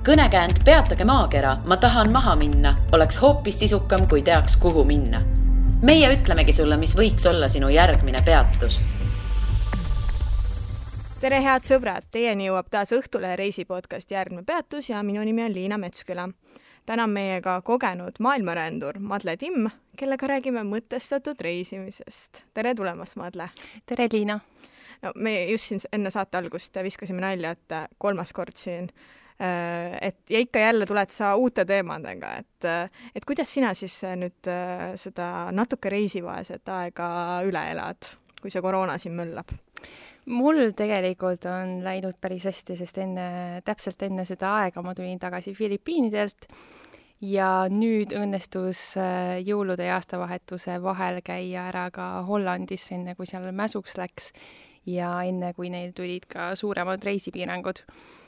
Kõnekäänd Peatage maakera, ma tahan maha minna, oleks hoopis sisukam, kui teaks, kuhu minna. Meie ütlemegi sulle, mis võiks olla sinu järgmine peatus. Tere head sõbrad, teieni jõuab taas Õhtulehe reisipodcast Järgmine peatus ja minu nimi on Liina Metsküla. Täna on meiega kogenud maailmarändur Madle Timm, kellega räägime mõtestatud reisimisest. Tere tulemast, Madle! Tere, Liina! No, me just siin enne saate algust viskasime nalja, et 3. kord siin. Ja ikka jälle tuled sa uute teemadega, et kuidas sina siis nüüd seda natuke reisivaeset aega üle elad, kui see koroona siin möllab? Mul tegelikult on läinud päris hästi, sest täpselt enne seda aega ma tulin tagasi Filipiinidelt ja nüüd õnnestus jõulude ja aastavahetuse vahel käia ära ka Hollandis, enne kui seal mäsuks läks ja enne kui neil tulid ka suuremad reisipiirangud.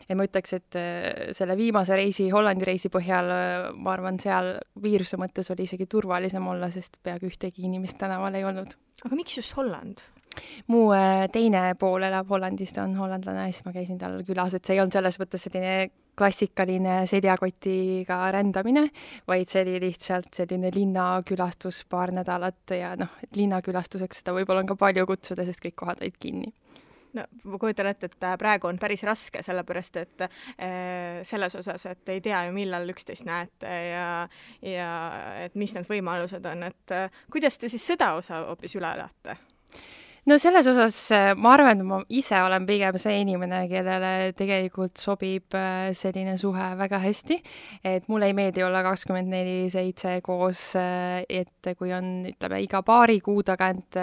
Ja ma ütleks, et selle viimase Hollandi reisi põhjal, ma arvan, seal viiruse mõttes oli isegi turvalisem olla, sest peaaegu ühtegi inimest tänaval ei olnud. Aga miks just Holland? Mu teine pool elab Hollandis, ta on hollandlane, siis ma käisin tal külas, et see ei olnud selles mõttes selline klassikaline seljakotiga rändamine, vaid see oli lihtsalt selline linnakülastus paar nädalat ja et linnakülastuseks seda võib-olla on ka palju kutsuda, sest kõik kohad olid kinni. No, ma kujutan ette, et praegu on päris raske, sellepärast, et selles osas, et ei tea ju millal üksteist näete ja et mis need võimalused on, et kuidas te siis seda osa hoopis üle elate? No selles osas ma arvan, et ma ise olen pigem see inimene, kellele tegelikult sobib selline suhe väga hästi, et mulle ei meeldi olla 24/7 koos, et kui on, ütleme, iga paari kuu tagant,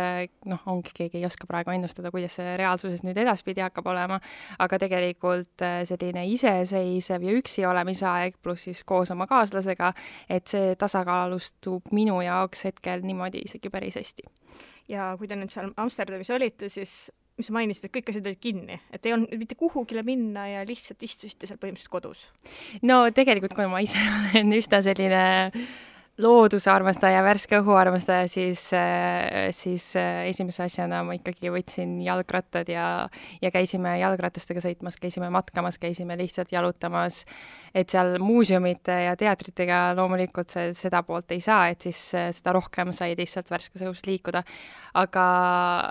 ongi keegi ei oska praegu ennustada, kuidas see reaalsuses nüüd edaspidi hakkab olema, aga tegelikult selline iseseisev ja üksi olemisaeg pluss siis koos oma kaaslasega, et see tasakaalustub minu jaoks hetkel niimoodi isegi päris hästi. Ja kui te nüüd seal Amsterdamis olite, siis mis sa mainisid, et kõik asjad olid kinni, et ei olnud mitte kuhugile minna ja lihtsalt istusite seal põhimõtteliselt kodus? No tegelikult, kui ma ise olen üsna selline looduse armastaja, värske õhu armastaja, siis esimese asjana ma ikkagi võtsin jalgrattad ja käisime jalgratastega sõitmas, käisime matkamas, käisime lihtsalt jalutamas, et seal muuseumite ja teatritega loomulikult seda poolt ei saa, et siis seda rohkem sai lihtsalt värskes õhus liikuda. Aga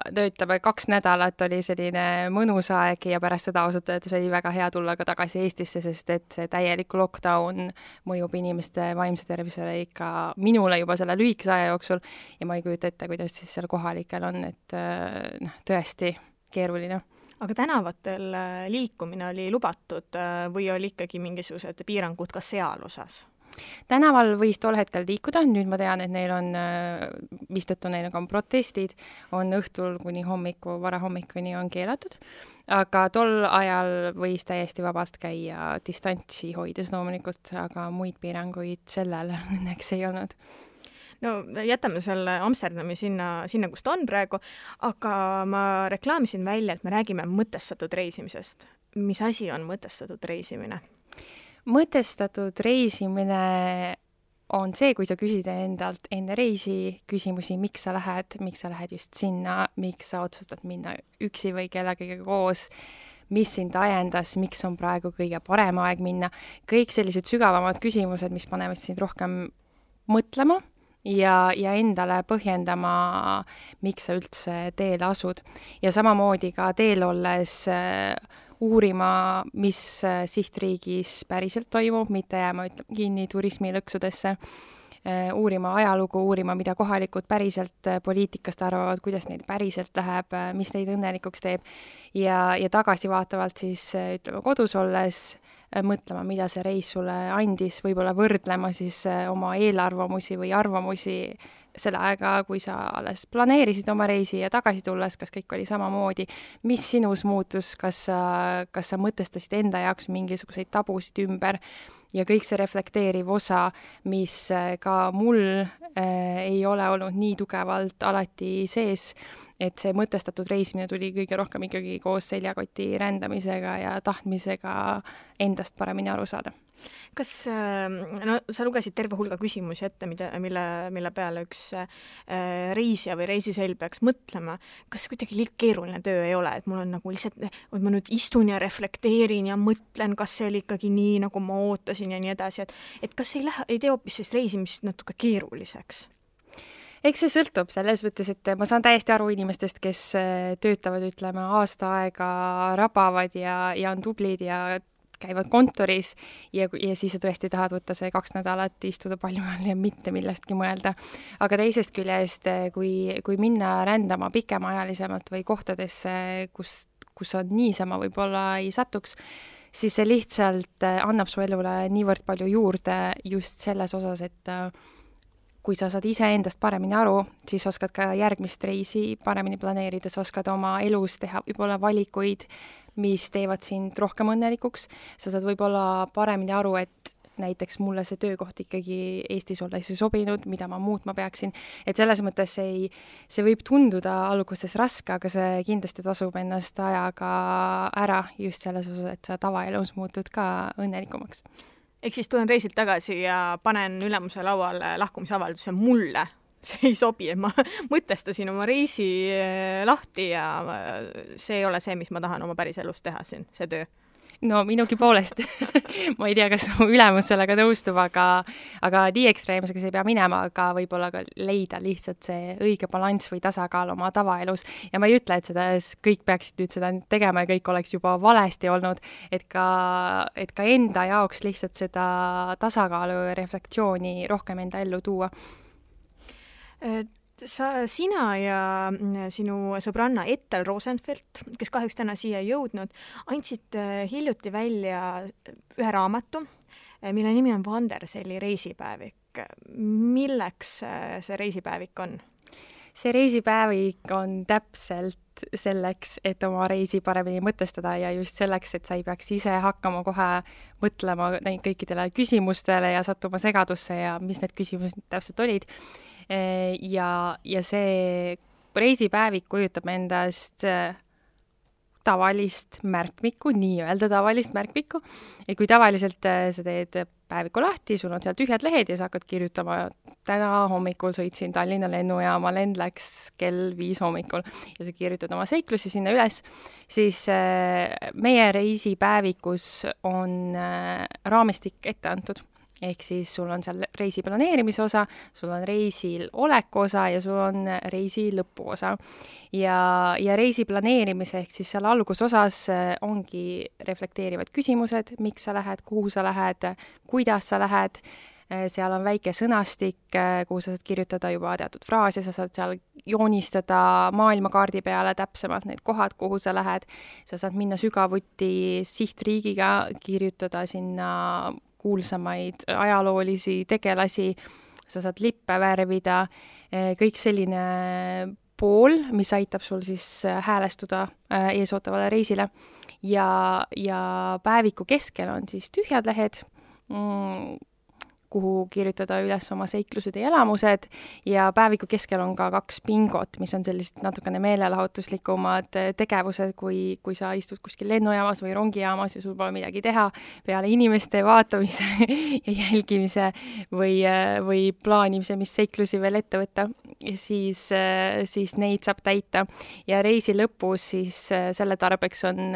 ütleme, 2 nädalat oli selline mõnus aeg ja pärast seda ausalt öeldes oli väga hea tulla ka tagasi Eestisse, sest et see täielik lockdown mõjub inimeste vaimse tervisele ikka minule juba selle lühikese aja jooksul ja ma ei kujuta ette, kuidas siis seal kohalikel on, et tõesti keeruline. Aga tänavatel liikumine oli lubatud või oli ikkagi mingisugused piirangud ka seal osas? Tänaval võis tol hetkel liikuda, nüüd ma tean, et neil on, mistõttu neil on protestid, on õhtul kuni varahommikuni on keelatud, aga tol ajal võis täiesti vabalt käia distantsi hoides loomulikult, aga muid piiranguid sellel õnneks ei olnud. No jätame selle Amsterdami sinna, kus ta on praegu, aga ma reklaamisin välja, et me räägime mõtestatud reisimisest. Mis asi on mõtestatud reisimine? Mõtestatud reisimine on see, kui sa küsid endalt enne reisi küsimusi, miks sa lähed just sinna, miks sa otsustad minna üksi või kellegagi koos, mis sind ajendas, miks on praegu kõige parem aeg minna. Kõik sellised sügavamad küsimused, mis panevad sind rohkem mõtlema ja endale põhjendama, miks sa üldse teele asud. Ja samamoodi ka teel olles uurima, mis sihtriigis päriselt toimub, mitte jääma kinni turismilõksudesse, uurima ajalugu, uurima, mida kohalikud päriselt poliitikast arvavad, kuidas neid päriselt läheb, mis neid õnnelikuks teeb ja tagasi vaatavalt siis, ütleme, kodus olles mõtlema, mida see reis sulle andis, võib-olla võrdlema siis oma eelarvamusi või arvamusi selle aega, kui sa alles planeerisid oma reisi ja tagasi tulles, kas kõik oli samamoodi, mis sinus muutus, kas sa mõtestasid enda jaoks mingisuguseid tabusid ümber ja kõik see reflekteeriv osa, mis ka mul ei ole olnud nii tugevalt alati sees, et see mõtestatud reisimine tuli kõige rohkem ikkagi koos seljakoti rändamisega ja tahtmisega endast paremini aru saada. Kas, no sa lugesid terve hulga küsimusi ette, mille peale üks reisija või reisiselg peaks mõtlema. Kas see kuidagi liiga keeruline töö ei ole, et mul on nagu lihtsalt, et ma nüüd istun ja reflekteerin ja mõtlen, kas see oli ikkagi nii, nagu ma ootasin ja nii edasi, et kas ei tee hoopis sellist reisimist natuke keeruliseks? Eks see sõltub selles mõttes, et ma saan täiesti aru inimestest, kes töötavad, ütleme, aasta aega rabavad ja on tublid ja käivad kontoris ja siis sa tõesti tahad võtta see 2 nädalat, istuda palju all ja mitte millestki mõelda. Aga teisest küljest, kui minna rändama pikemaajalisemalt või kohtadesse, kus on niisama võib-olla ei satuks, siis see lihtsalt annab su elule niivõrd palju juurde just selles osas, et kui sa saad ise endast paremini aru, siis oskad ka järgmist reisi paremini planeerida, sa oskad oma elus teha võib-olla valikuid, mis teevad sind rohkem õnnelikuks. Sa saad võib-olla paremini aru, et näiteks mulle see töökoht ikkagi Eestis olles ei sobinud, mida ma muutma peaksin. Et selles mõttes see võib tunduda alguses raske, aga see kindlasti tasub ennast ajaga ära just selles osas, et sa tavaelus muutud ka õnnelikumaks. Ehk siis tulen reisilt tagasi ja panen ülemuse lauale lahkumisavalduse mulle. See ei sobi, et ma mõtestasin oma reisi lahti ja see ei ole see, mis ma tahan oma päris elus teha siin, see töö. No minugi poolest. Ma ei tea, kas mu ülemus sellega nõustub, aga nii ekstreemsega see ei pea minema, aga võib-olla ka leida lihtsalt see õige balanss või tasakaal oma tavaelus. Ja ma ei ütle, et kõik peaksid nüüd seda tegema ja kõik oleks juba valesti olnud, et ka enda jaoks lihtsalt seda tasakaalu ja reflektsiooni rohkem enda ellu tuua. Sina ja sinu sõbranna Ethel Rosenfeld, kes kahjuks täna siia ei jõudnud, andsid hiljuti välja ühe raamatu, mille nimi on Vanderselli reisipäevik. Milleks see reisipäevik on? See reisipäevik on täpselt selleks, et oma reisi paremini mõtestada ja just selleks, et sa ei peaks ise hakkama kohe mõtlema kõikidele küsimustele ja sattuma segadusse ja mis need küsimused täpselt olid. Ja see reisipäevik kujutab endast tavalist märkmikku, nii-öelda tavalist märkmikku. Ja kui tavaliselt sa teed päeviku lahti, sul on seal tühjad lehed ja sa hakkad kirjutama, täna hommikul sõitsin Tallinna lennujaama, lend läks kell 5 hommikul ja sa kirjutad oma seiklusi sinna üles, siis meie reisipäevikus on raamistik ette antud. Ehk siis sul on seal reisi planeerimise osa, sul on reisil oleku osa ja sul on reisi lõpu osa. Ja reisi planeerimise ehk siis seal algusosas ongi reflekteerivad küsimused, miks sa lähed, kuhu sa lähed, kuidas sa lähed. Seal on väike sõnastik, kuhu sa saad kirjutada juba teatud fraase, sa saad seal joonistada maailmakaardi peale täpsemalt need kohad, kuhu sa lähed. Sa saad minna sügavuti sihtriigiga, kirjutada sinna kuulsamaid ajaloolisi tegelasi, sa saad lippe värvida, kõik selline pool, mis aitab sul siis häälestuda eesootavale reisile. Ja päeviku keskel on siis tühjad lehed, kuhu kirjutada üles oma seiklused ja elamused ja päeviku keskel on ka 2 bingot, mis on sellised natukene meelelahutuslikumad tegevused, kui sa istud kuskil lennujaamas või rongijaamas ja sul pole midagi teha peale inimeste vaatamise ja jälgimise või plaanimise, mis seiklusi veel ette võtta, siis neid saab täita. Ja reisi lõpus siis selle tarbeks on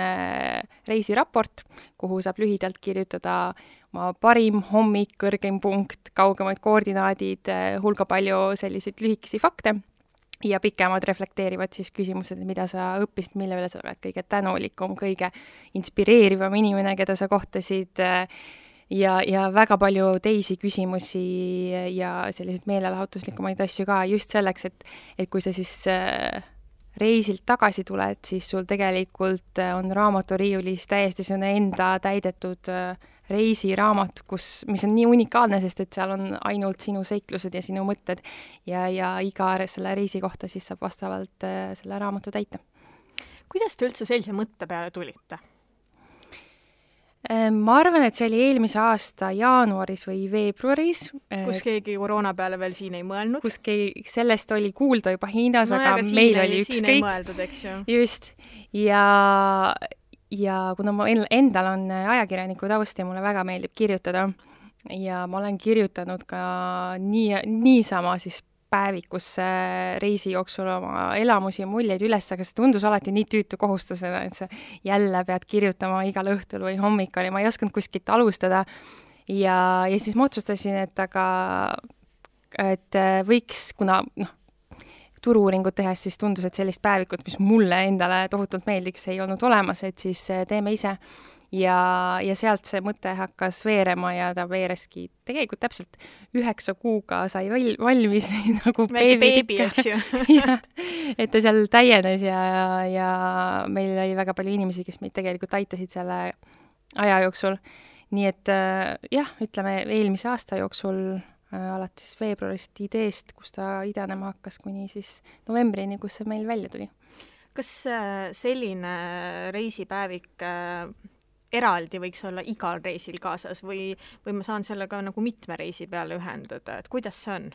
reisiraport, kuhu saab lühidalt kirjutada oma parim hommik, kõrgem punkt, kaugemad koordinaadid, hulga palju selliseid lühikesi fakte ja pikemad reflekteerivad siis küsimused, mida sa õppisid, mille üle sa oled kõige tänulikum, kõige inspireerivam inimene, keda sa kohtasid ja väga palju teisi küsimusi ja selliseid meelelahutuslikumaid asju ka just selleks, et kui sa siis reisilt tagasi tuled, siis sul tegelikult on raamaturiiulis täiesti selline enda täidetud reisiraamat, mis on nii unikaalne, sest et seal on ainult sinu seiklused ja sinu mõtted ja iga selle reisi kohta siis saab vastavalt selle raamatu täita. Kuidas te üldse sellise mõtte peale tulite? Ma arvan, et see oli eelmise aasta jaanuaris või veebruaris. Kus keegi koroona peale veel siin ei mõelnud. Kus sellest oli kuulda juba Hiinas, aga meil oli ükskõik. Siin ei mõeldud, eks ju. Just. Ja kuna ma endal on ajakirjaniku taust ja mulle väga meeldib kirjutada ja ma olen kirjutanud ka niisama siis päevikusse reisi jooksul oma elamusi ja muljeid üles, aga see tundus alati nii tüütu kohustusena, et sa jälle pead kirjutama igal õhtul või hommikul ja ma ei osanud kuskilt alustada. Ja siis ma otsustasin, et võiks, kuna turu-uuringut tehes siis tundus, et sellist päevikut, mis mulle endale tohutult meeldiks, ei olnud olemas, et siis teeme ise. Ja sealt see mõte hakkas veerema ja ta veereski tegelikult täpselt 9 kuuga sai valmis nagu beebi, eks ju. Et ta seal täienes ja meil oli väga palju inimesi, kes meid tegelikult aitasid selle aja jooksul. Nii et jah, ütleme eelmise aasta jooksul alates veebruarist ideest, kus ta idanema hakkas kuni siis novembrini, kus see meil välja tuli. Kas selline reisipäevik eraldi võiks olla igal reisil kaasas või ma saan sellega nagu mitme reisi peale ühendada, et kuidas see on?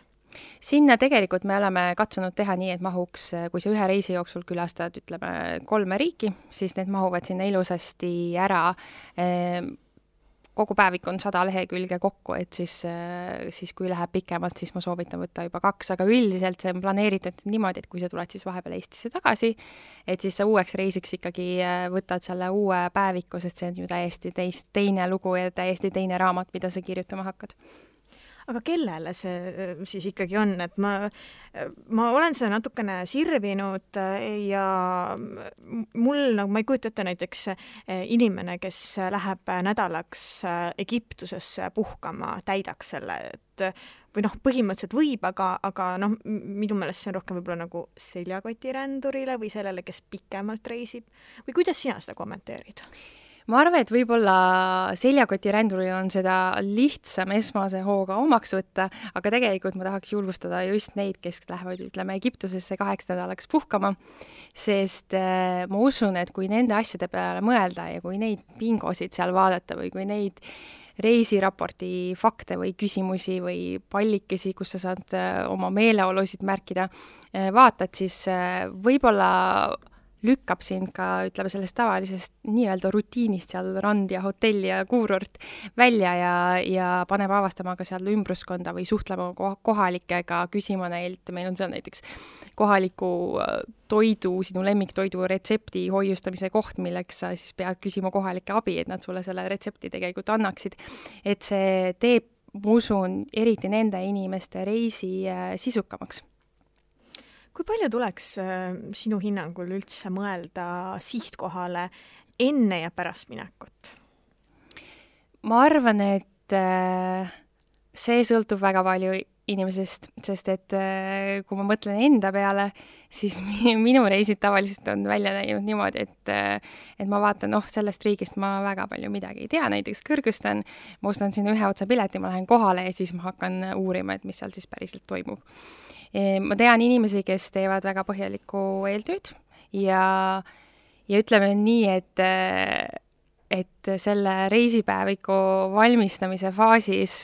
Sinna tegelikult me oleme katsunud teha nii, et mahuks, kui sa ühe reisi jooksul külastad, ütleme 3 riiki, siis need mahuvad sinna ilusasti ära. Kogu päevik on 100 lehekülge kokku, et siis kui läheb pikemalt, siis ma soovitan võtta juba 2, aga üldiselt see on planeeritud niimoodi, et kui sa tuled siis vahepeal Eestisse tagasi, et siis sa uueks reisiks ikkagi võtad selle uue päeviku, sest see on ju täiesti teine lugu ja täiesti teine raamat, mida sa kirjutama hakkad. Aga kellele see siis ikkagi on, et ma olen seda natukene sirvinud ja mul, nagu ma ei kujuta ette näiteks inimene, kes läheb nädalaks Egiptusesse puhkama, täidaks selle, et või põhimõtteliselt võib, aga minu meelest see on rohkem võib-olla nagu seljakotirändurile või sellele, kes pikemalt reisib. Või kuidas sina seda kommenteerid? Ma arvan, et võib-olla seljakotiränduril on seda lihtsam esmase hooga omaks võtta, aga tegelikult ma tahaks julgustada just neid, kes lähevad, ütleme, Egiptusesse 8 nädalaks puhkama, sest ma usun, et kui nende asjade peale mõelda ja kui neid bingosid seal vaadata või kui neid reisiraporti fakte või küsimusi või pallikesi, kus sa saad oma meeleolusid märkida, vaatad, siis võib-olla lükkab sind ka, ütleme, sellest tavalisest nii-öelda rutiinist seal rand ja hotell ja kuurort välja ja paneb avastama ka seal ümbruskonda või suhtlema kohalikega, küsima neilt, meil on seal näiteks kohaliku toidu, sinu lemmiktoidu retsepti hoiustamise koht, milleks sa siis pead küsima kohalike abi, et nad sulle selle retsepti tegelikult annaksid. Et see teeb, ma usun, eriti nende inimeste reisi sisukamaks. Kui palju tuleks sinu hinnangul üldse mõelda sihtkohale enne ja pärast minekut? Ma arvan, et see sõltub väga palju inimesest, sest et kui ma mõtlen enda peale, siis minu reisid tavaliselt on välja näinud niimoodi, et ma vaatan, sellest riigist ma väga palju midagi ei tea, näiteks Kõrgõzstan, ma ostan sinna ühe otsa pileti, ma lähen kohale ja siis ma hakkan uurima, et mis seal siis päriselt toimub. Ma tean inimesi, kes teevad väga põhjalikku eeltööd ja ütleme nii, et selle reisipäeviku valmistamise faasis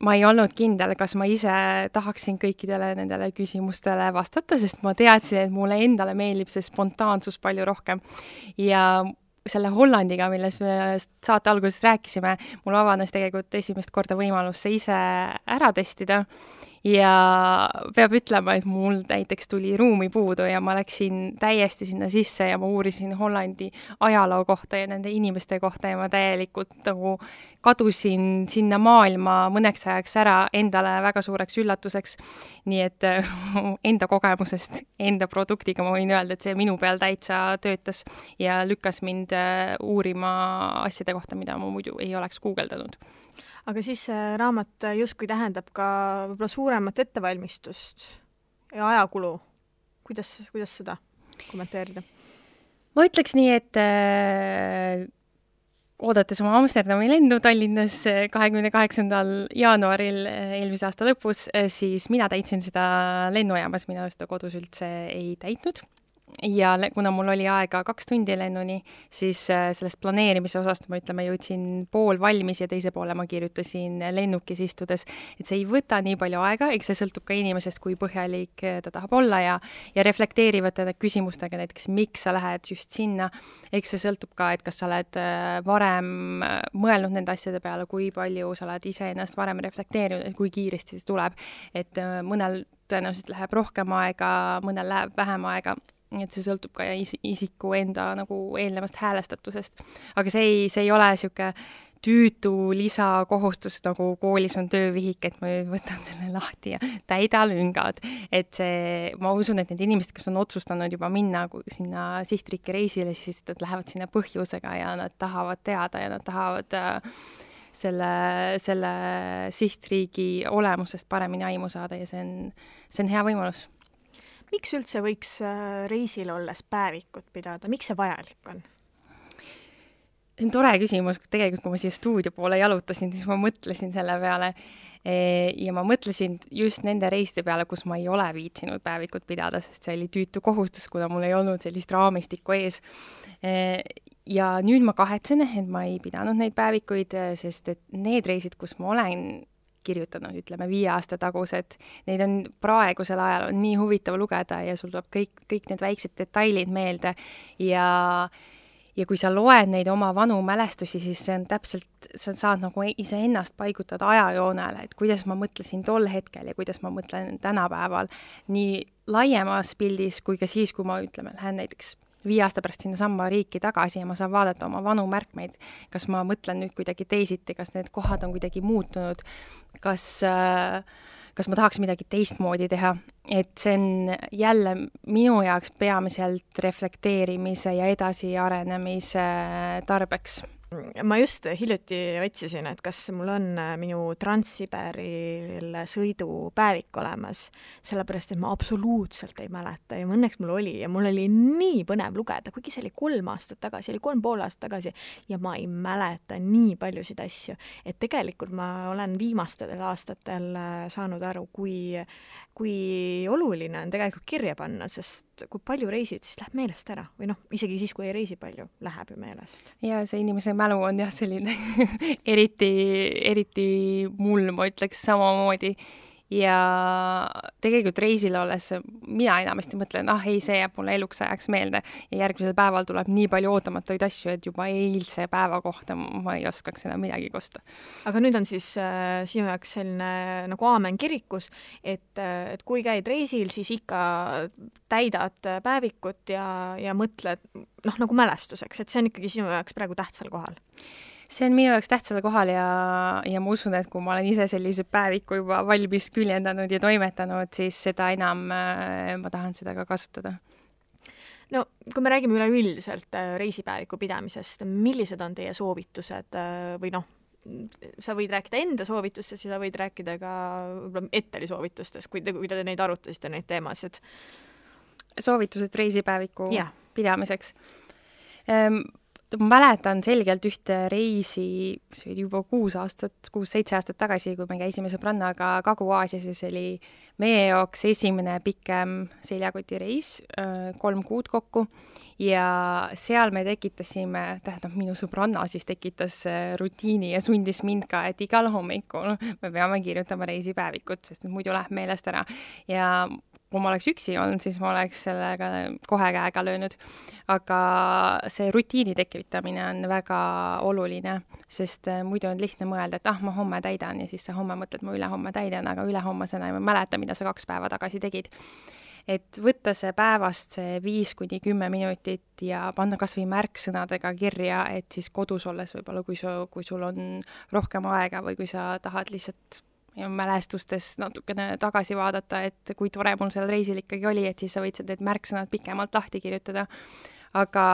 ma ei olnud kindel, kas ma ise tahaksin kõikidele nendele küsimustele vastata, sest ma teadsin, et mulle endale meeldib see spontaansus palju rohkem. Ja selle Hollandiga, milles me saate alguses rääkisime, mul avanes tegelikult esimest korda võimalus see ise ära testida. Ja peab ütlema, et mul näiteks tuli ruumi puudu ja ma läksin täiesti sinna sisse ja ma uurisin Hollandi ajaloo kohta ja nende inimeste kohta ja ma täielikult nagu kadusin sinna maailma mõneks ajaks ära endale väga suureks üllatuseks. Nii et enda kogemusest, enda produktiga ma võin öelda, et see minu peal täitsa töötas ja lükkas mind uurima asjade kohta, mida ma muidu ei oleks guugeldanud. Aga siis raamat justkui tähendab ka võib-olla suuremat ettevalmistust ja ajakulu. Kuidas seda kommenteerida? Ma ütleks nii, et oodates oma Amsterdami lendu Tallinnas 28. jaanuaril eelmise aasta lõpus, siis mina täitsin seda lennujaamas, mina seda kodus üldse ei täitnud. ja kuna mul oli aega 2 tundi lennuni, siis sellest planeerimise osast ma jõudsin pool valmis ja teise poole ma kirjutasin lennukis istudes, et see ei võta nii palju aega, eks see sõltub ka inimesest, kui põhjalik ta tahab olla ja reflekteerivate küsimustega, näiteks miks sa lähed just sinna, eks see sõltub ka, et kas sa oled varem mõelnud nende asjade peale, kui palju sa oled iseennast varem reflekteerinud, et kui kiiresti see tuleb, et mõnel tõenäoliselt läheb rohkem aega, mõnel läheb vähem aega, et see sõltub ka isiku enda nagu eelnevast häälestatusest. Aga see ei ole siuke tüütu lisakohustus, nagu koolis on töövihik, et ma võtan selle lahti ja täida lüngad. Et ma usun, et need inimesed, kes on otsustanud juba minna sinna sihtriiki reisile, siis nad lähevad sinna põhjusega ja nad tahavad teada ja nad tahavad selle sihtriigi olemusest paremini aimu saada ja see on hea võimalus. Miks üldse võiks reisil olles päevikut pidada? Miks see vajalik on? See on tore küsimus. Tegelikult, kui ma siia stuudio poole jalutasin, siis ma mõtlesin selle peale ja ma mõtlesin just nende reiste peale, kus ma ei ole viitsinud päevikut pidada, sest see oli tüütu kohustus, kuna mul ei olnud sellist raamistikku ees. Ja nüüd ma kahetsen, et ma ei pidanud neid päevikuid, sest et need reisid, kus ma olen kirjutanud, ütleme 5 aasta tagused, neid on praegusel ajal on nii huvitav lugeda ja sul tuleb kõik need väiksed detailid meelde ja kui sa loed neid oma vanu mälestusi, siis see on täpselt, sa saad nagu iseennast paigutada ajajoonele, et kuidas ma mõtlesin tol hetkel ja kuidas ma mõtlen tänapäeval nii laiemas pildis kui ka siis, kui ma lähen näiteks 5 aasta pärast sinna samma riiki tagasi ja ma saan vaadata oma vanu märkmeid, kas ma mõtlen nüüd kuidagi teisiti, kas need kohad on kuidagi muutunud, kas ma tahaks midagi teistmoodi teha, et see on jälle minu jaoks peamiselt reflekteerimise ja edasiarenemise tarbeks. Ma just hiljuti otsisin, et kas mul on minu Trans-Siberil sõidu päevik olemas, sellepärast, et ma absoluutselt ei mäleta ja õnneks mul oli ja mul oli nii põnev lugeda, kuigi see oli 3 aastat tagasi, oli 3,5 aastat tagasi ja ma ei mäleta nii paljusid asju, et tegelikult ma olen viimastel aastatel saanud aru, kui oluline on tegelikult kirja panna, sest kui palju reisid, siis läheb meelest ära või isegi siis, kui ei reisi palju, läheb ju meelest. Ja see inimese mälu on jah selline eriti mul, ma ütleks samamoodi ja tegelikult reisil olles mina enamasti mõtlen, ei, see jääb mulle eluks ajaks meelde ja järgmisel päeval tuleb nii palju ootamatuid asju, et juba eilse päeva kohta ma ei oskaks enam midagi kosta. Aga nüüd on siis sinu jaoks selline nagu aamen kirikus, et kui käid reisil, siis ikka täidad päevikut ja mõtled nagu mälestuseks, et see on ikkagi sinu jaoks praegu tähtsal kohal. See on minu jaoks tähtsal kohal ja ma usun, et kui ma olen ise sellise päeviku juba valmis küljendanud ja toimetanud, siis seda enam ma tahan seda ka kasutada. No, kui me räägime üleüldiselt reisipäeviku pidamisest, millised on teie soovitused või sa võid rääkida enda soovitustest ja sa võid rääkida ka Etteli soovitustest, kui te neid arutasite, neid teemasid? Soovitused reisipäeviku pidamiseks? Ma mäletan selgelt ühte reisi, see oli juba 6-7 aastat tagasi, kui me käisime sõbrannaga Kagu-Aasias ja see oli meie jaoks esimene pikem seljakotireis, 3 kuud kokku ja seal me tekitasime, minu sõbranna siis tekitas rutiini ja sundis mind ka, et igal hommikul me peame kirjutama reisipäevikut, sest muidu läheb meelest ära ja kui ma oleks üksi olnud, siis ma oleks sellega kohe käega löönud. Aga see rutiini tekitamine on väga oluline, sest muidu on lihtne mõelda, et ma homme täidan ja siis sa homme mõtled, ma ülehomme täidan, aga ülehommasena ei mäleta, mida sa 2 päeva tagasi tegid. Et võtta see päevast see 5-10 minutit ja panna kas või märksõnadega kirja, et siis kodus olles võib-olla, kui sul on rohkem aega või kui sa tahad lihtsalt mälestustes natukene tagasi vaadata, et kui tore mul seal reisil ikkagi oli, et siis sa võid need märksõnad pikemalt lahti kirjutada. Aga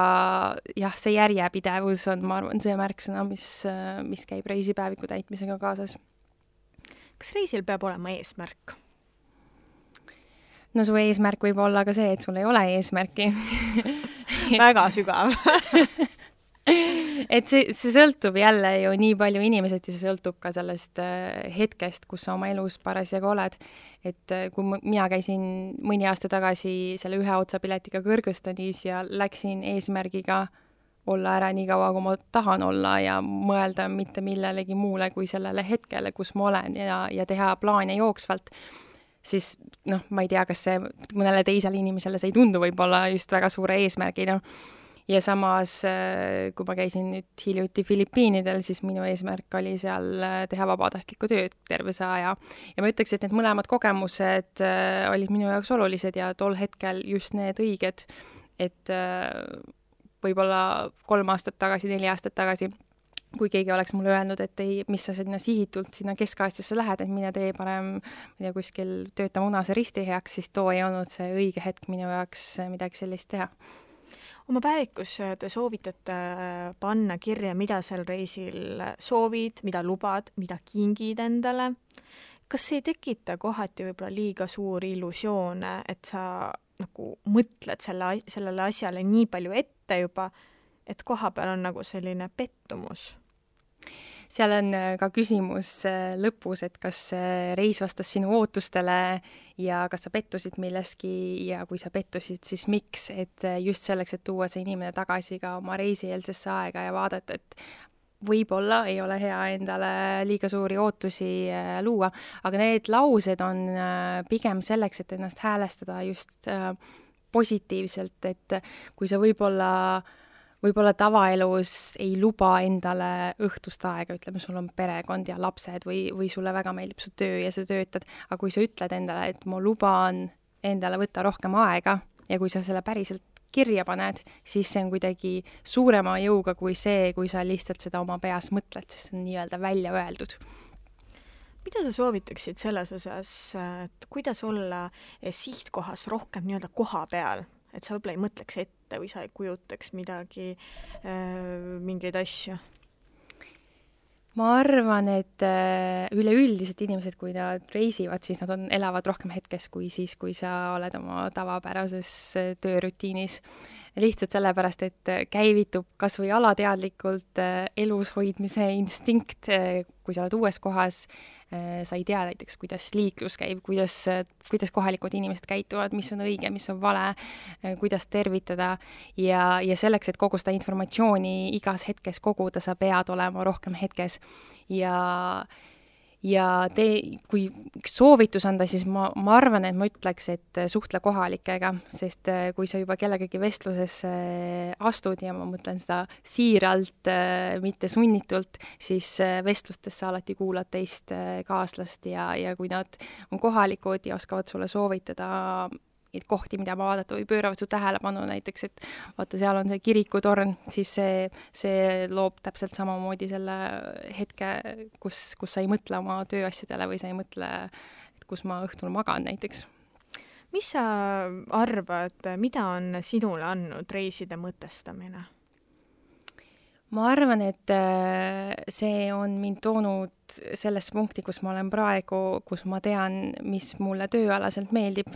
jah, see järjepidevus on, ma arvan, see märksõna, mis käib reisipäeviku täitmisega kaasas. Kas reisil peab olema eesmärk? No su eesmärk võib olla ka see, et sul ei ole eesmärki. Väga sügav. et see sõltub jälle ju nii palju inimesed ja see sõltub ka sellest hetkest, kus sa oma elus parasjagu oled. Et kui mina käisin mõni aasta tagasi selle ühe otsapiletiga Kõrgõzstanis ja läksin eesmärgiga olla ära nii kaua, kui ma tahan olla ja mõelda mitte millelegi muule kui sellele hetkele, kus ma olen ja teha plaane jooksvalt, siis ma ei tea, kas see mõnele teisele inimesele see ei tundu võib-olla just väga suure eesmärgina. Ja samas, kui ma käisin nüüd hiljuti Filipiinidel, siis minu eesmärk oli seal teha vabatahtlikku tööd terve see aja. Ja ma ütleks, et need mõlemad kogemused olid minu jaoks olulised ja tol hetkel just need õiged, et võib-olla 3 aastat tagasi, 4 aastat tagasi, kui keegi oleks mulle öelnud, et ei, mis sa sinna sihitult sinna Kesk-Aasiasse lähed, et mine tee parem kuskil tööta Munase Risti heaks, siis too ei olnud see õige hetk minu jaoks midagi sellist teha. Oma päevikus te soovitate panna kirja, mida sel reisil soovid, mida lubad, mida kingid endale. Kas see ei tekita kohati võib-olla liiga suuri illusioone, et sa nagu mõtled sellele asjale nii palju ette juba, et koha peal on nagu selline pettumus? Seal on ka küsimus lõpus, et kas reis vastas sinu ootustele ja kas sa pettusid milleski ja kui sa pettusid, siis miks, et just selleks, et tuua see inimene tagasi ka oma reisieelsesse aega ja vaadata, et võib-olla ei ole hea endale liiga suuri ootusi luua, aga need laused on pigem selleks, et ennast häälestada just positiivselt, et kui sa võib-olla tavaelus ei luba endale õhtust aega, ütleme, sul on perekond ja lapsed või sulle väga meeldib su töö ja sa töötad, aga kui sa ütled endale, et ma luban endale võtta rohkem aega ja kui sa selle päriselt kirja paned, siis see on kuidagi suurema jõuga kui see, kui sa lihtsalt seda oma peas mõtled, sest see on nii-öelda välja öeldud. Mida sa soovitaksid selles osas, et kuidas olla sihtkohas rohkem nii-öelda koha peal? Et sa võib-olla ei mõtleks ette või sa ei kujutaks midagi, mingeid asju? Ma arvan, et üleüldiselt inimesed, kui nad reisivad, siis nad elavad rohkem hetkes kui siis, kui sa oled oma tavapärases töörutiinis. Lihtsalt sellepärast, et käivitub kas või alateadlikult elus hoidmise instinkt, kui sa oled uues kohas, sa ei tea näiteks, kuidas liiklus käib, kuidas kohalikud inimesed käituvad, mis on õige, mis on vale, kuidas tervitada ja selleks, et kogu seda informatsiooni igas hetkes koguda, sa pead olema rohkem hetkes kui üks soovitus anda, siis ma arvan, et ma ütleks, et suhtle kohalikega, sest kui sa juba kellegagi vestlusesse astud ja ma mõtlen seda siiralt, mitte sunnitult, siis vestlustes sa alati kuulad teist kaaslast ja kui nad on kohalikud ja oskavad sulle soovitada kohti, mida vaadata või pööravad su tähelepanu näiteks, et vaata, seal on see kirikutorn, siis see loob täpselt samamoodi selle hetke, kus sa ei mõtle oma tööasjadele või sa ei mõtle, et kus ma õhtul magan näiteks. Mis sa arvad, mida on sinule andnud reiside mõtestamine? Ma arvan, et see on mind toonud sellesse punkti, kus ma olen praegu, kus ma tean, mis mulle tööalaselt meeldib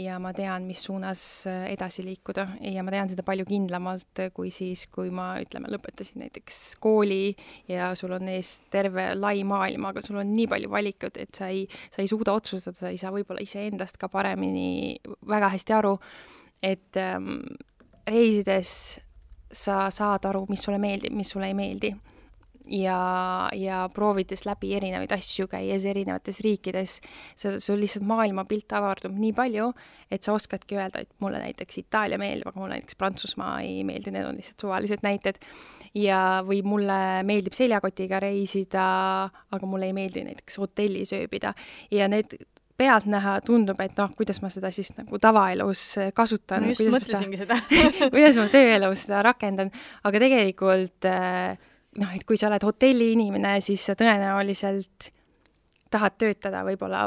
ja ma tean, mis suunas edasi liikuda ja ma tean seda palju kindlamalt kui siis, kui ma, lõpetasin näiteks kooli ja sul on ees terve lai maailm, aga sul on nii palju valikut, et sa ei suuda otsustada, sa ei saa võib-olla iseendast ka paremini väga hästi aru, et reisides sa saad aru, mis sulle meeldib, mis sulle ei meeldi. Ja proovides läbi erinevaid asju, käies erinevates riikides, sul lihtsalt maailmapilt avardub nii palju, et sa oskadki öelda, et mulle näiteks Itaalia meeldib, aga mulle näiteks Prantsusmaa ei meeldi, need on lihtsalt suvalised näited. Või mulle meeldib seljakotiga reisida, aga mulle ei meeldi näiteks hotellis ööbida. Ja need pealt näha tundub, et kuidas ma seda siis nagu tavaelus kasutan. No just mõtlesingi seda. Kuidas ma tööelus seda rakendan. Aga tegelikult, et kui sa oled hotelli inimene, siis sa tõenäoliselt tahad töötada võib-olla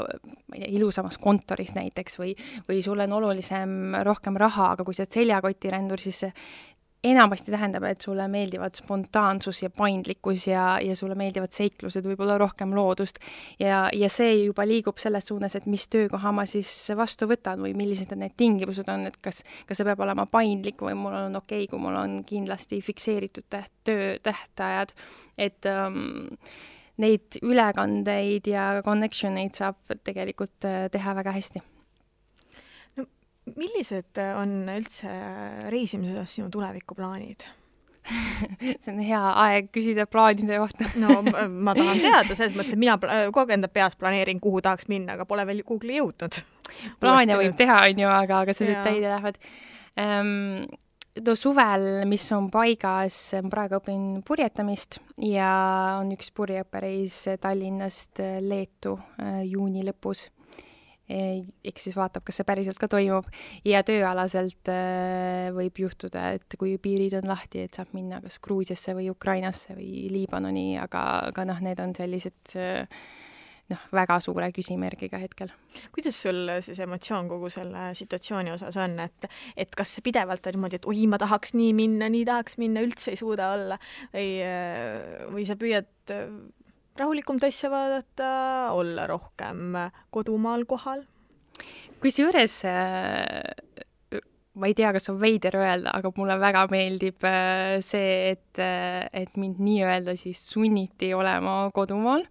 ilusamas kontoris näiteks või sul on olulisem rohkem raha, aga kui sa oled seljakotirendur, siis enamasti tähendab, et sulle meeldivad spontaansus ja paindlikkus ja sulle meeldivad seiklused, võib-olla rohkem loodust ja see juba liigub selles suunas, et mis töökoha ma siis vastu võtan või millised need tingimused on, et kas see peab olema paindlik või mul on okei, kui mul on kindlasti fikseeritud töötähtajad, et neid ülekandeid ja connectioneid saab tegelikult teha väga hästi. Millised on üldse reisimise osas sinu tulevikuplaanid? See on hea aeg küsida plaanide kohta. No ma tahan teada, selles mõttes, et mina kogu aeg enda peas planeerin, kuhu tahaks minna, aga pole veel Google'i jõudnud. Plaane võib teha, on ju, aga see detaile lähevad. Suvel, mis on paigas, praegu õpin purjetamist ja on üks purjeõppereis Tallinnast Leetu juuni lõpus. Eks siis vaatab, kas see päriselt ka toimub ja tööalaselt võib juhtuda, et kui piirid on lahti, et saab minna kas Gruusiasse või Ukrainasse või Liibanoni, aga need on sellised väga suure küsimärgiga hetkel. Kuidas sul siis emotsioon kogu selle situatsiooni osas on, et kas pidevalt on niimoodi, et oi, ma tahaks nii tahaks minna, üldse ei suuda olla või sa püüad rahulikum asja vaadata, olla rohkem kodumaal kohal? Kusjuures ma ei tea, kas on veider öelda, aga mulle väga meeldib see, et mind nii-öelda siis sunniti olema kodumaal.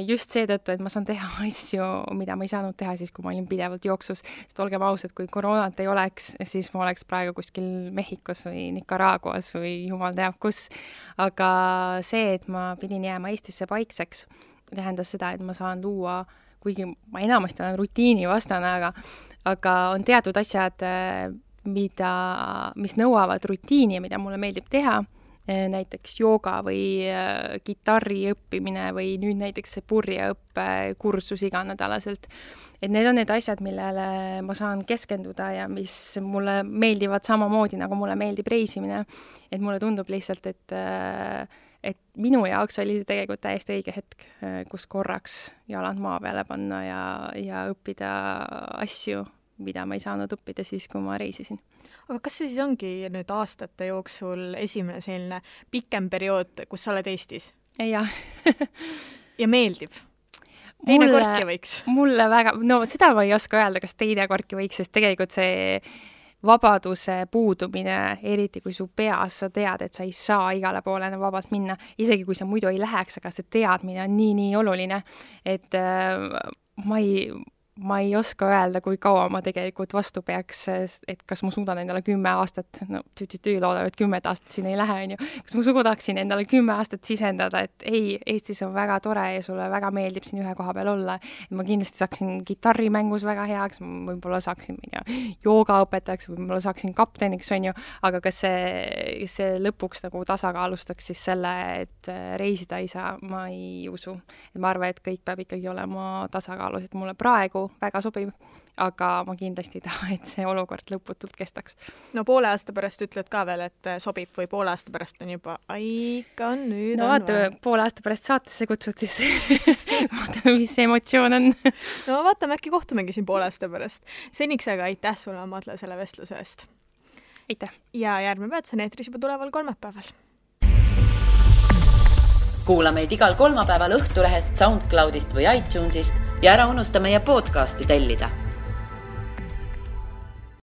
Just seetõttu, et ma saan teha asju, mida ma ei saanud teha siis, kui ma olin pidevalt jooksus. Sest olgem ausad, kui koroonat ei oleks, siis ma oleks praegu kuskil Mehhikos või Nicaraguas või jumal teab kus. Aga see, et ma pidin jääma Eestisse paikseks, tähendas seda, et ma saan luua, kuigi ma enamasti olen rutiini vastane, aga on teatud asjad, mis nõuavad rutiini, mida mulle meeldib teha, näiteks jooga või kitarri õppimine või nüüd näiteks see purjeõppe kursus iganädalaselt. Et need on need asjad, millele ma saan keskenduda ja mis mulle meeldivad samamoodi, nagu mulle meeldib reisimine. Et mulle tundub lihtsalt, et minu jaoks oli see tegelikult täiesti õige hetk, kus korraks jalad maa peale panna ja õppida asju, mida ma ei saanud õppida siis, kui ma reisisin. Aga kas see siis ongi nüüd aastate jooksul esimene selline pikem periood, kus sa oled Eestis? Jah. Ja meeldib? Teine kordki võiks? Mulle väga, seda ma ei oska öelda, kas teine kordki võiks, sest tegelikult see vabaduse puudumine, eriti kui su peas sa tead, et sa ei saa igale poole vabalt minna, isegi kui sa muidu ei läheks, aga see teadmine on nii oluline, et ma ei oska öelda, kui kaua ma tegelikult vastu peaks, et kas ma suudan endale 10 aastat, loodab, et 10 aastat siin ei lähe, on ju. Kas ma suudaksin endale 10 aastat sisendada, et ei, Eestis on väga tore ja sulle väga meeldib siin ühe koha peal olla. Ma kindlasti saaksin kitarrimängus väga heaks, võib-olla saaksin joogaõpetajaks, võib-olla saaksin kapteniks, on ju, aga kas see lõpuks nagu tasakaalustaks siis selle, et reisida ei saa, ma ei usu. Et ma arvan, et kõik peab ikkagi olema tasakaalus, et mulle praegu väga sobib, aga ma kindlasti ei taha, et see olukord lõputult kestaks. No poole aasta pärast ütled ka veel, et sobib või poole aasta pärast on juba ikka on nüüd no vaata, poole aasta pärast saatesse kutsud siis vaatame, mis see emotsioon on. No vaatame, äkki kohtumegi siin poole aasta pärast. Seniks aga aitäh sulle, Madle, selle vestluse eest. Aitäh. Ja järgmine peatus on eetris juba tuleval kolmapäeval. Kuula meid igal kolmapäeval Õhtulehest, SoundCloudist või iTunesist ja ära unusta meie podcasti tellida.